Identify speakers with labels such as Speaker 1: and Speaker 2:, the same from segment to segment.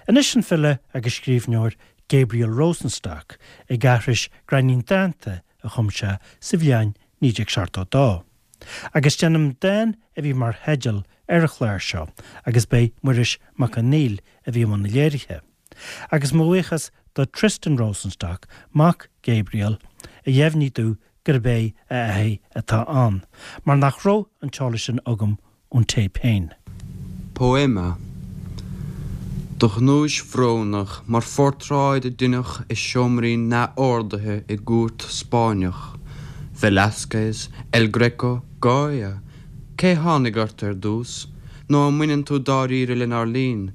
Speaker 1: Anois an file agus scríbhneoir Gabriel Rosenstock ag aithris gráinnín dánta a chum sé sa bhliain 1972. Agus déanaim dán a bhí mar theideal ar an chlár seo agus b'é Muiris Mac Conghail a bhí i mbun na léirithe. Agus mo bhuíochas do Tristan Rosenstock, mac Gabriel, a dheimhnigh domh gurb é a athair atá ann, mar nach raibh an t-eolas sin agam ón téip féin.
Speaker 2: Poema. Do ghnúis bhrónach mar phortráid a deineadh i seomraí neamhordaithe i gcúirt Spáinneach, Velázquez, El Greco, Goya, cé tháinig ort ar dtús, nó an mbaineann tú dáiríre lenár linn,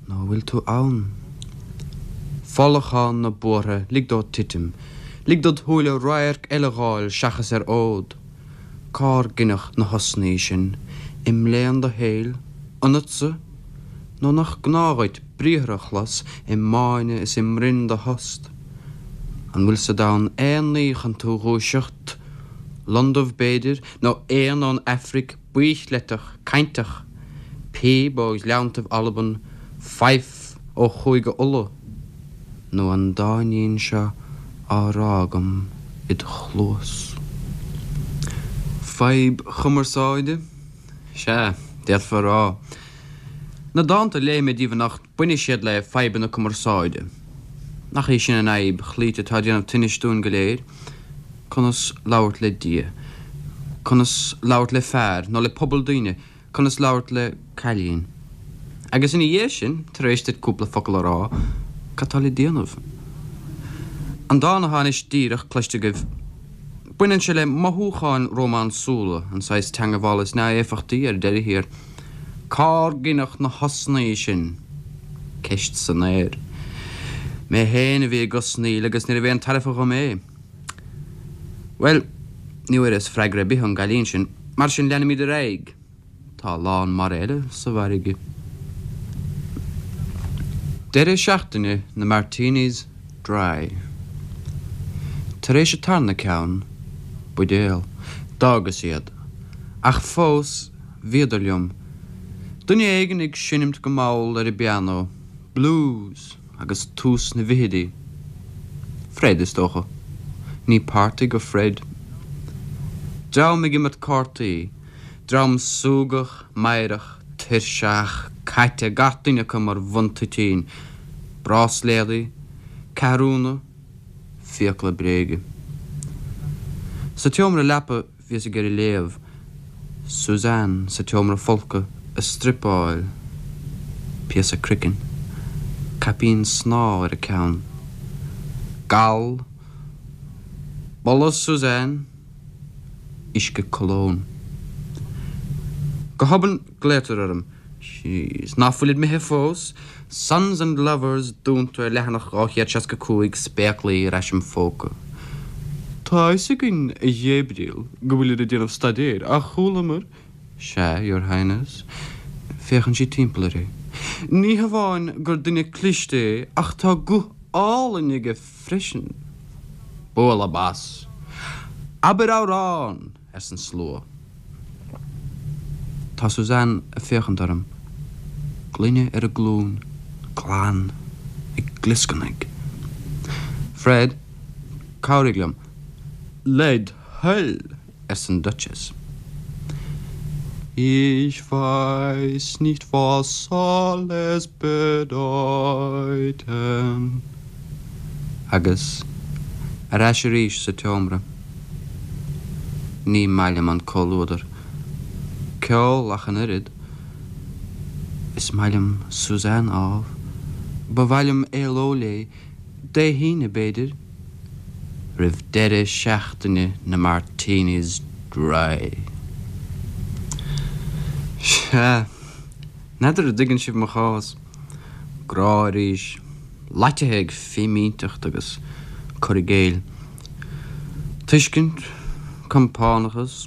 Speaker 2: Nó an bhfuil tú ann? Folachán na buartha, lig dó titim. Lig dod shúile radharc eile dh'fháil seachas ar fhód. Cár gineadh na hosnaí sin? I mbléan do shaoil? Ionatsa? Nó nach gnáth dhuit briathra a chlos i mbáine is i mbroinn do thost? An bhfuil sa domhan aon ní chun tú dhúiseacht? Londubh b'fhéidir, nó éan ón Aifric baothchleiteach, cainteach, píb ó ghleanntaibh Alban, faife ó Chúige Uladh, nó an dáinín seo á rá agam id chluas. Fadhb chumarsáide? Sea, d'fhéadfá a rá. Na dánta a léigh mé daoibh anocht, bainfidh siad le fadhbanna cumarsáide. Nach í sin an fhadhb chloíte atá ag déanamh tinnis dúinn go léir? Conas labhairt le Dia? Conas labhairt le fear, nó le pobal daoine? Conas labhairt le cailín? Agus ina dhiaidh sin, tar éis duit cúpla focal a rá, cad tá le déanamh? An dán atá anois díreach cloiste agaibh, baineann sé le mothúcháin rómánsúla, an saghas teangabhála is neamhéifeachtaí ar deireadh thiar. Cár gineadh na hosnaí sin? Ceist san aer. Mé féin a bhí ag osnaíl agus níorbh aon tairbhe dhom é. Bhuel, ní bhfuaireas freagra ar bith ón gcailín sin, mar sin leanfaimid ar aghaidh. Tá a lán mara eile sa bhfarraige. Deireadh seachtaine na Martinis Dry. Tar éis an tarna ceann, buidéal, d'fhágas iad. Ach fós, bhíodar liom. Duine éigin ag seinmt go mall ar an bpianó, blues agus tús na bhfichidí. Fred, is dócha. Ní party go Fred. Dream ag imirt cártaí. Dream súgach, meidhreach, tuirseach, caite, gach duine acu mar bhun toitín. Bráisléadaí. Ceathrúna. Fiacla bréige. Sa tseomra leapa Bhíos ag iarraidh léamh. Suzanne sa tseomra folctha ag struipeáil. Píosa croicinn. Caipín snámha ar a ceann. Gal. Boladh Suzanne. Uisce cologne. Go hobann glaotar orm. Jeez, ná fuilid imithe fós? Sons and Lovers dúnta ar leathanach 265, spéaclaí ar ais im phóca. Tá a fhios againn, a Ghabriel, go bhfuilir ag déanamh staidéir, ach chualamar. Sea, Your Highness. Féachann sí timpeall uirthi. Ní hamháin gur duine cliste é, ach tá guth álainn aige freisin. Bualadh bas. Abair amhrán! arsa an slua. Tá Suzanne ag féachaint orm, gloine ar a glúin, glan, ag glioscarnaigh. Fred, cabhraigh liom. Led thoil, arsa an Duchess. Ich weiß nicht was soll es bedeuten. Agus ar ais arís sa tseomra. Ní maith liom an comhluadar. Ceol ach an oiread. Is maith liom Suzanne, ámh. Ba mhaith liom éaló léi, Dé hAoine, b'fhéidir, roimh deireadh seachtaine na Martinis Dry. Sea, n'fheadar an dtuigeann sibh mo chás. Grá arís. Loitithe ag fimínteacht agus cur i gcéill. Tuiscint, compánachas,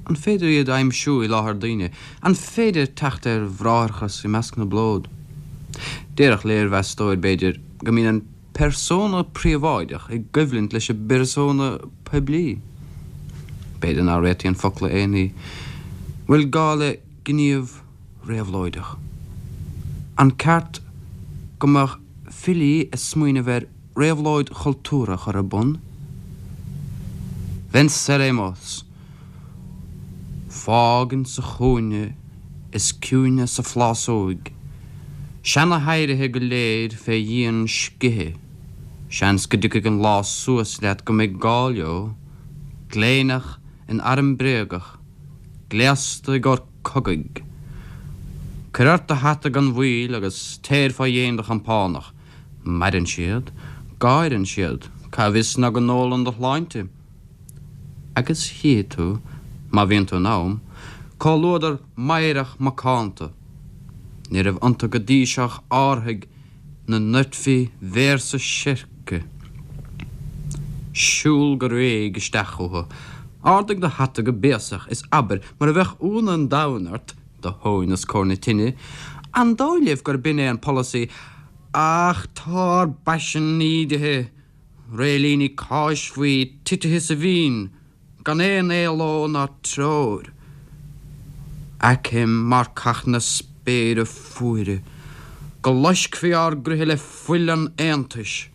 Speaker 2: an féidir iad a aimsiú i láthair daoine? An féidir teacht ar bhráithreachas i measc na bplód? Déarfadh léirmheastóir, b'fhéidir, go mbíonn an persona príobháideach i gcoimhlint leis an bpersona poiblí. B'fhéidir nach réitíonn focla aon ní. Bhfuil gá le gníomh réabhlóideach? An ceart. Go mbeadh filí ag smaoineamh ar réabhlóid chultúrtha a chur ar bun? Venceremos! Fág insa chúinne is ciúine sa phlásóig seana-oidhrithe go léir fé dhíon scíthe, seans go dtiocfaidh an lá suas leat go mbeidh gá leo, gléineach in arm bréagach, gléasta i gcomhair cogaidh. Cuir ort do hata gan mhoill agus téir fá dhéin do chompánach. Maireann siad, gáireann siad, cá bhfios ná go n-ólann do shláinte? Agus chífidh tú, má bhíonn tú in am, comhluadar meidhreach macánta. Ní raibh iontu go dtí seo ach árthaigh 'na ndoirtfí véarsa seirce. Siúl go réidh isteach chucu, ardaigh do hata go béasach is abair mar a bheadh ionadh an domhain ort, do thóin os comhair na tine, An dóigh libh gurb in é an polasaí? Ach tá ár bpaisean ídithe! Réilíní cáis faoi titithe sa bhinn, gan aon éaló ná treoir. Aicim marcach na spéire fuaire, go loiscfí ár gcroíthe le fuil an aontais.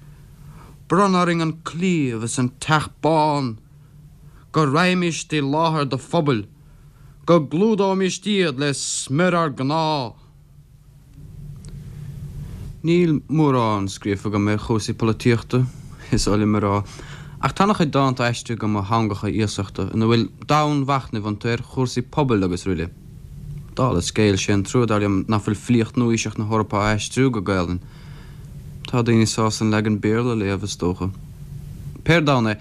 Speaker 2: Bronn orainn an claíomh is an teach bán, go raghaimíst i láthair do phobail, go gclúdóimíst iad le smior ár gcnámh. Níl mórán scríofa agam ar chúrsaí polaitíochta, is oth liom a rá, ach tá an-chuid dánta aistrithe agam ó theangacha iasachta ina bhfuil domhainmhachnaimh iontu ar chúrsaí pobail agus aroile. Dála scéil, sé an trua, dar liom, nach bhfuil filíocht nua-aoiseach na hEorpa á aistriú go Gaelainn. Tá daoine sásta an leagan Béarla a léamh, is dócha. Pé ar domhan é,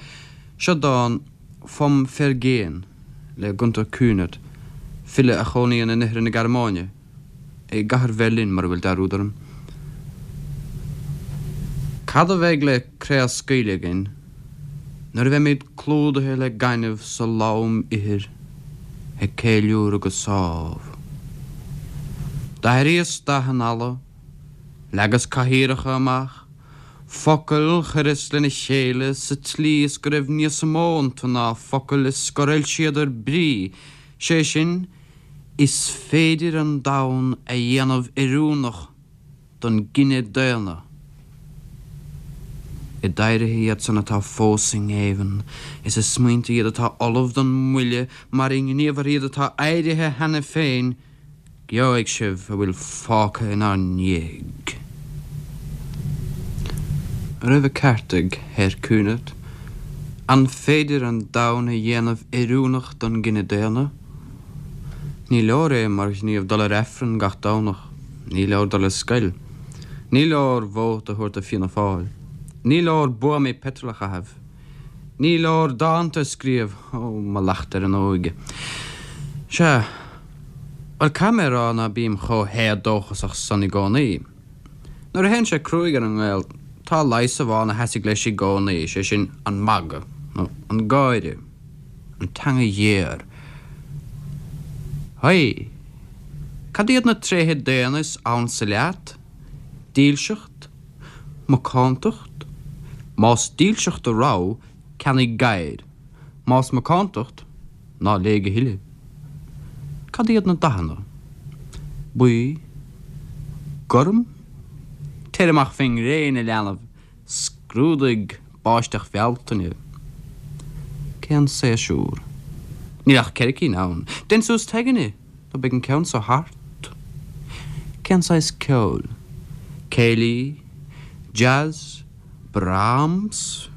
Speaker 2: seo dán Vom Vergehen le Gunther Kühnert, file a chónaíonn in oirthear na Gearmáine. i gcathair Bheirlín, mura bhfuil dearúd orm. Cad a bheidh le craobhscaoileadh againn nuair a bheimid clúdaithe le gaineamh sa lom ithir ag ceiliúradh go sámh? D'athraíos dath an fhalla, leagas cathaoireacha amach, focail chuireas lena chéile sa tslí is go raibh níos mó iontu ná focail is gur fhoilsíodar brí, sé sin, Is féidir an domhan a dhéanamh oiriúnach don gcine daonna. I d'oidhrithe iad san atá fós i ngéibheann, is i smaointe iad atá ullamh don mbuille mar i ngníomhartha iad atá éirithe cheana féin, gheobhaidh sibh a bhfuil fágtha inár ndiaidh. An raibh an ceart ag Herr Kühnert? An féidir an domhan a dhéanamh oiriúnach don gcine daonna? Ní leor é mar ghníomh dul ar Aifreann gach Domhnach. Ní leor dul ar scoil. Ní leor vóta a thabhairt do Fianna Fáil. Ní leor buamaí peitril a chaitheamh. Ní leor dánta a scríobh, ó, mo lacht ar an óige. Sea, bhuel, caithfidh mé a rá ná bím chomh héadóchasach san i gcónaí. Nuair a théann sé cruaidh ar an nGael, tá leigheas amháin a sheasfaidh leis i gcónaí, sé sin, an magadh, nó an gáire, an teanga ghéar. Haigh! Cad iad na tréithe daonna is ansa leat? Dílseacht? Macántacht? Más dílseacht do rogha, ceannaigh gadhair. Más macántacht, Ná léigh a thuilleadh. Cad iad na dathanna? Buí? Gorm? Téir amach fén ngréin, a leanbh, scrúdaigh báisteach Bhealtaine. Cén séasúr? Níl ach 4 cinn ann. Dein suas t'aigne, nó beidh an ceann so thart. Cén saghas ceoil? Céilí? Jazz? Brahms?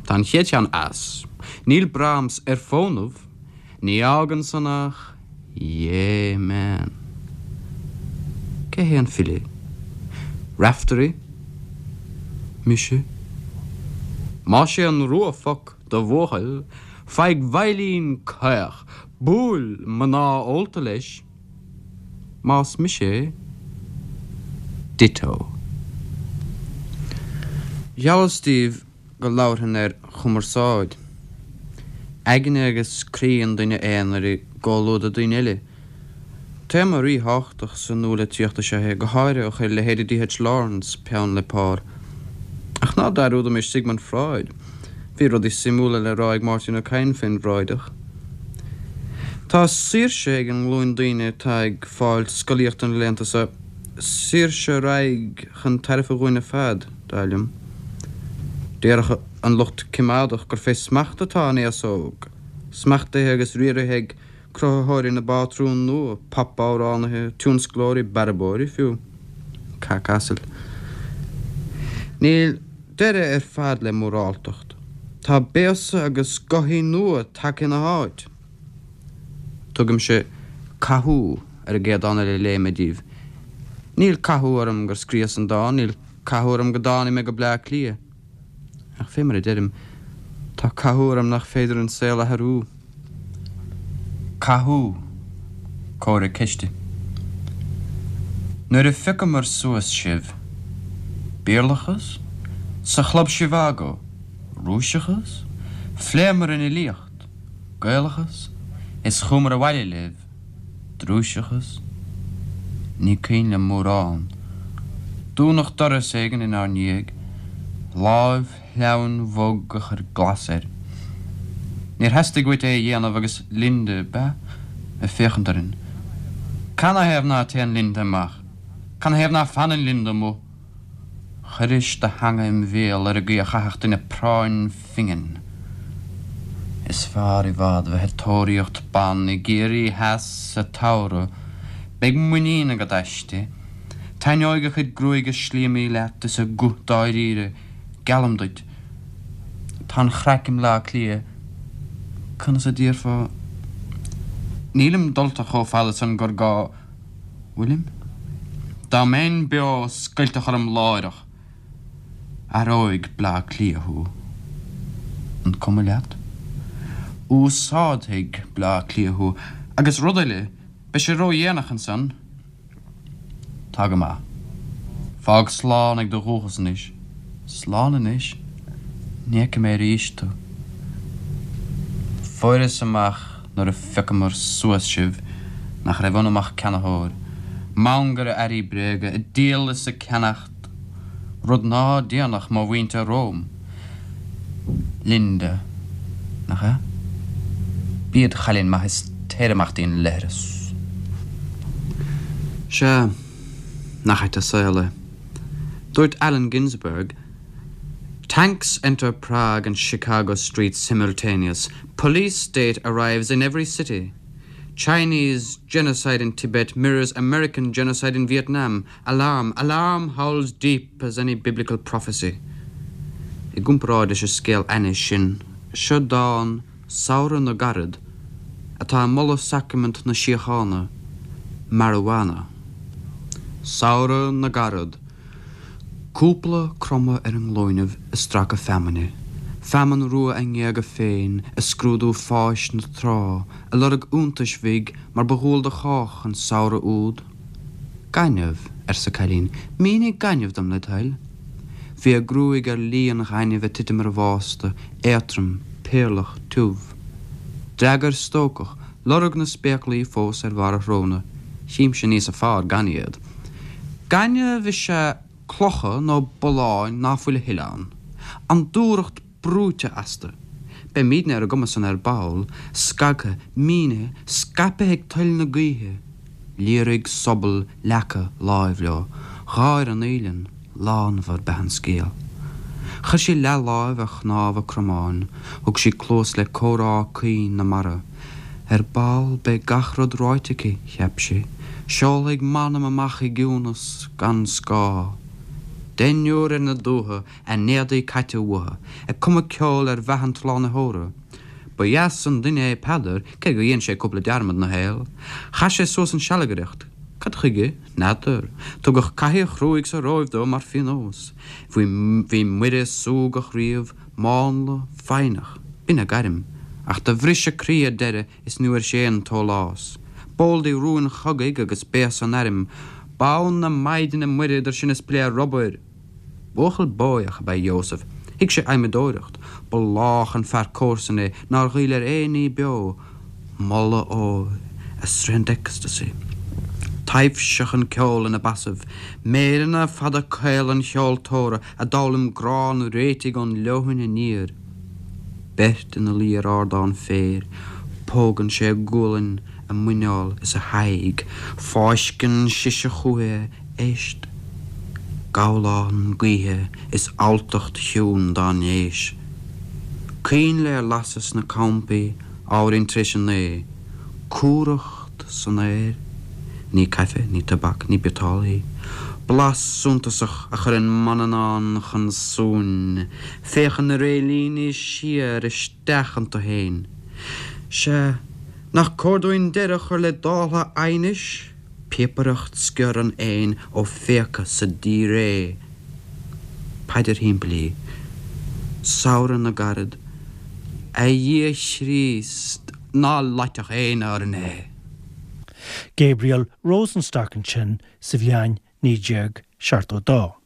Speaker 2: Tá an chéad cheann as. Níl Brahms ar fónamh. Ní fhágann san ach Yeah man. Cé hé an file? Raiftearaí? Mise? Más é an rua foc do bhuachaill, faigh veidhlín caoch, buail mná ólta leis. Más mise é, ditto. Gheallas daoibh go labharfainn ar chumarsáid. Aigne agus croí an duine aonair i gcomhluadar daoine eile. Téama ríthábhachtach sa nualitríocht is ea é, go háirithe ó chuir leithéidí D.H. Lawrence peann le pár. Ach ná dearúdaimis Sigmund Freud. Bhí rudaí suimiúla le rá ag Máirtín Ó Cadhain fén bhFreudach. Tá saoirse ag an nglúin daoine atá ag fáil scolaíochta na laethanta seo. Saoirse a raghaidh chun tairbhe dhúinn ar fad, dar liom. Déarfadh an lucht coimeádach gur fé smacht atá an aos óg, smachtaithe agus riaraithe ag cruthaitheoirí na bpátrún nua, pop-amhránaithe, tionsclóirí, bearbóirí fiú. Cac asail. Níl deireadh ar fad le móráltacht. Tá béasa agus gothaí nua tagtha ina háit. Tugaimse 'Cathú' ar an gcéad dán eile a léifidh mé díbh. Níl cathú orm gur scríobhas an dán, níl cathú orm go dtáinig mé go Bleá Cliath. Ach fé mar a deirim, tá cathú orm nach féidir an saol a athrú. Cathú, comhartha ceiste. Nuair a phiocamar suas sibh. Béarlachas? Sa Chlub Zhivago? Rúiseachas? Phléamar an fhilíocht. Gaelachas? Is chuamar abhaile libh. Drúiseachas? Ní cuimhin liom mórán. Dúnadh doras éigin inár ndiaidh, láimh shleamhain bhog a chuir glas air. Níor theastaigh uait é a dhéanamh agus Linda, b'ea? ag féachaint orainn. Canathaobh ná téann Linda amach? Canathaobh ná fanann Linda amuigh? Chuiris do theanga im bhéal ar an gcaoi a chaithfeadh duine práinn phingin. Is fearr i bhfad bheith ag tóraíocht ban i gCiarraí Theas sa tsamhradh. Beidh muinín agat aisti. Taitneoidh a cuid gruaige slíomaí leat is a guth dáiríre, geallaim duit. Tá an chraic i mBleá Cliath. Conas a déarfá? Nílim dulta chomh fada san gur gá. Bhfuilim? Dá mbeinn beo scoiltfeadh orm láithreach. Athróidh Bleá Cliath thú. An cuma leat? Úsáidfidh Bleá Cliath thú. Agus rud eile, beidh sé ródhéanach ansan. Tá go maith. Fág slán ag do dhúchas anois. Slán anois? Ní fheicfidh mé arís tú. Fuaireas amach nuair a phiocamar suas sibh nach raibh ionam ach ceannaitheoir, mangaire earraí bréige, ag díol is ag ceannacht, rud ná déanfadh mo mhuintir romham. Linda, nach ea? Bí id chailín maith is téir amach dtí'n leithreas. Sea, nach ait an saol é. Dúirt Allen Ginsberg, Tanks enter Prague and Chicago streets simultaneous. Police state arrives in every city. Chinese genocide in Tibet mirrors American genocide in Vietnam. Alarm, alarm howls deep as any biblical prophecy. I gcomparáid leis an scéal ainnis sin, seo dán Samhradh na gCarad, atá ag moladh sacraimint na síochána, marijuana. Samhradh na gCarad. Cúpla cromadh ar a nglúinibh ag stracadh feamainne, feamainn rua a ngéaga féin ag scrúdú fáis na trá, ag lorg iontais bhig mar ba dhual do chách an samhradh úd. Gaineamh, arsa cailín, mínigh gaineamh dom led thoil. Bhí a gruaig ar lí an ghainimh ag titim ar an bhásta, éadtrom, péarlach, tiubh. D'fhreagair stócach, lorg na spéaclaí fós ar bharr a shróna, Chímse níosa fearr gan iad. Gaineamh is ea clocha nó bulláin ná fuil a thuilleadh ann. An dúthracht brúite astu. Beimídne ar an gcuma san ar ball, scagtha, mínithe, scaipthe ag toil na gaoithe. Liathraigh sobal leaca láimh leo. Gháir an fhaoileann. Lánmhar b'ea an scéal. Chuir sí leathláimh ar chnámha a cromáin, thug sí cluas le comhrá caoin na mara. Ar ball beidh gach rud ráite aici, cheap sí. Seolfaidh m'anam amach i gciúnas gan scáth. Deichniúr ar na dútha, a n-éadaí caite uathu, ag cumadh ceoil ar mheath an tSlánaitheora. Ba dheas an duine é Peadar, cé gur dhein sé cúpla dearmad 'na shaol. Chaith sé suas an sealgaireacht. Cad chuige? N'fheadar. Tugadh cathaoir chruaidh sa Róimh dó mar phionós. Bhí bhí Muire súgach riamh, mánla, foighneach. B'in a gairm. Ach do bhris a croí ar deireadh is ní bhfuair sí aon tsólás. B'eol di rúin chogaidh agus béasa an airm. Bonn na Maighdine Muire idir sin is plé rubair! Buachaill bóidheach ab ea Joseph. Thuig sé adhmadóireacht. Ba lách an fear comharsan é nár ghoill ar aon ní beo. Moladh óir, a sroicheann ecstasy. Taibhseach an ceol ina basaibh. Méireanna fada caola an cheoltóra a d'fhoghlaim grá an réitigh ón leoithne aniar. Beirt ina luí ar ardán féir. Pógann sé a gualainn, a muineál is a haghaidh. Fáisceann sise chúithi é. Éist. Gabhlán gaoithe is alltacht chiúin dá n-éis. Coinnle ar lasadh sna campaí ábhairín tar éis a naoi. Cumhracht san aer. Ní caife, ní tobac, ní biotáille í. Blas suntasach a chuireann Manannán chun suain. Féachann na réilíní siar isteach iontu féin. Sea, nach cóir dúinn deireadh a chur le dáltha aighnis? Píopaireacht sciorr an éin ó phéaca sa díréidh. Paidir shimplí. Samhradh na gcarad. A Dhia Chríost, ná loitfeadh éinne orainn é!
Speaker 1: Gabriel Rosenstock ansin sa bhliain 1972.